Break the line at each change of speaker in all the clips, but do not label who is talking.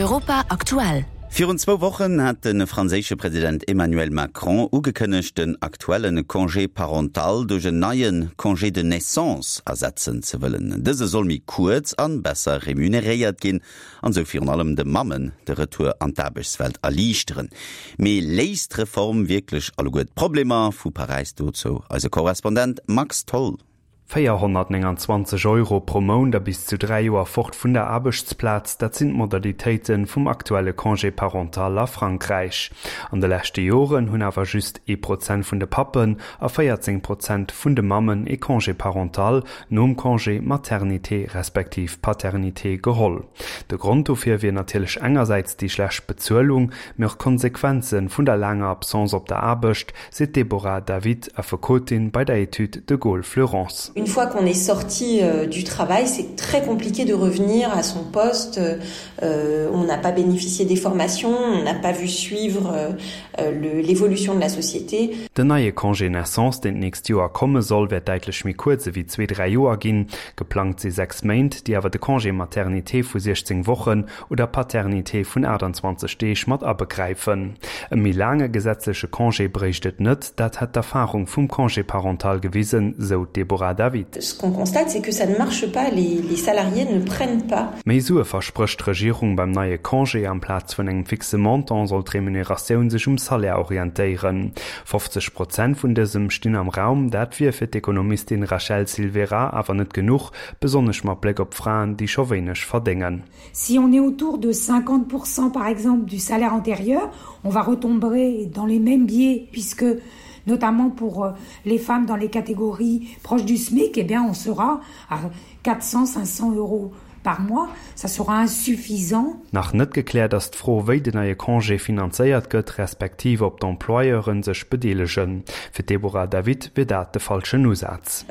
Europa aktuell.
Virun zwou Wochen hat de franséische President Emmanuel Macron ugekënnegt, den aktuelle Congé parental duerch en neie Congé de naissance ersetzen ze wëllen. Dëse soll méi kuerz an besser remuneréiert ginn an esou virun allem de Mammen de Retour an d'Aarbechtswelt erliichteren. Mee léist d'Reform wierklech alleguer d'Problemer? Vu Paräis dozou eise Korrespondent Max Tholl.
429 Euro pro Mount a bis zu 3 Joer fort vun der Aarbechtsplaz, dat sinn d'Modalitéite vum aktuelle Congé parental a Frankräich. An de leschte Joren hunn awer just ee Prozent vun de Pappen a 14 Prozent vun de Mammen ee Congé parental nom Congé maternité respektiv paternité geholl. De Grond dofir wier natierlech engersäits déi schlecht Bezuelung, mee och d'Konsequenze vun der laanger Absence op der Aarbecht, seet d'Deborah David, Affekotin bei der Etüd de Gaulle Fleurance.
Une fois qu'on est sorti du travail, c'est très compliqué de revenir à son poste. On n'a pas bénéficié des formations, on n'a pas vu suivre l'évolution de la société.
Den neie Congé naissance, deen d'nächst Joer komme soll, wäert däitlech méi kuerz ewéi zwee, dräi Joer ginn. Geplangt si 6 Méint, déi awer de Congé maternité vu 16 Wochen oder Paternité vun 28 Deeg mat abegräifen. E méi laange gesetzleche Congé bréicht et net, dat hätt d'Erfarung vum Congé parental gewisen, sou d'Deborah David.
Ce qu'on constate, c'est que ça ne marche pas, les salariés ne prennent pas.
Méi Sue versprécht d'Regierung beim neie Congé. Amplaz vun engem fixe Montant soll d'Remuneratioun sech um Salaire orientéieren. 50 Prozent vun dësem stinn am Raum. Dat wier fir d'Ekonomistin Rachel Silvera awer net genuch, besonnesch mat Bléck op Fraen, déi scho wéineg verdéngen.
Si on est autour de 50% par exemple du salaire antérieur, on va retomber dans les mêmes biais puisque notamment pour euh, les femmes dans les catégories proches du SMIC, eh bien on sera à 400 500 euros par mois, ça sera insuffisant.
Nach net gekläert ass d'Fro, wéi den neie Congé finanzéiert gëtt, respektiv ob d'Employeure sech bedeelegen. Fir d'Deborah David wier dat de falschen Usaz.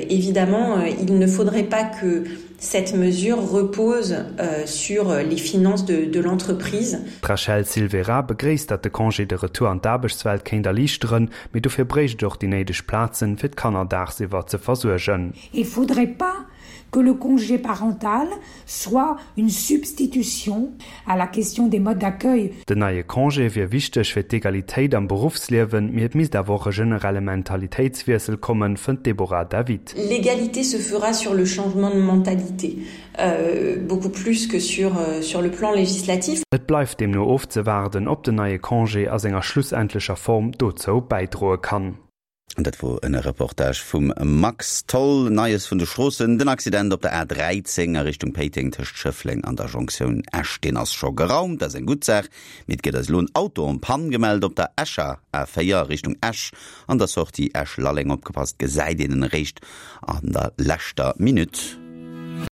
Évidemment, il ne faudrait pas que cette mesure repose sur les finances de de l'entreprise.
D'Rachel Silveira begréisst, datt de Congé de retour an d'Aarbechtswelt kéint erliichteren, mee dofir bréicht et och déi néideg Plazen, fir d'Kanner daagsiwwer ze versuergen.
Il faudrait pas que le congé parental soit une substitution à la question des modes d'accueil.
Den neie Congé wier wichteg fir d'Egalitéit am Beruffsliewen, mee et misst awer och e generelle Mentalitéitswiessel kommen, fënnt d'Deborah David.
L'égalité se fera sur le changement de mentalité, beaucoup plus que sur sur le plan législatif.
Et bleift deemno ofzewaarden, ob den neie Congé a senger schlussendlecher Form dozou bäidroe kann.
An dat wor en Reportage vum Max Tholl. Neies vun de Stroossen, Den Accident op der A 13 a Richtung Péiteng tëscht Schëffleng an der Jonktioun Esch, deen ass scho geraumt, dat ass eng gutt Saach. Mee et gëtt eis elo en Auto en panne gemellt op der Escher A4 a Richtung Esch an der Sortie Esch-Lalleng. Opgepasst, gesäit een en eréischt an der leschter Minutt.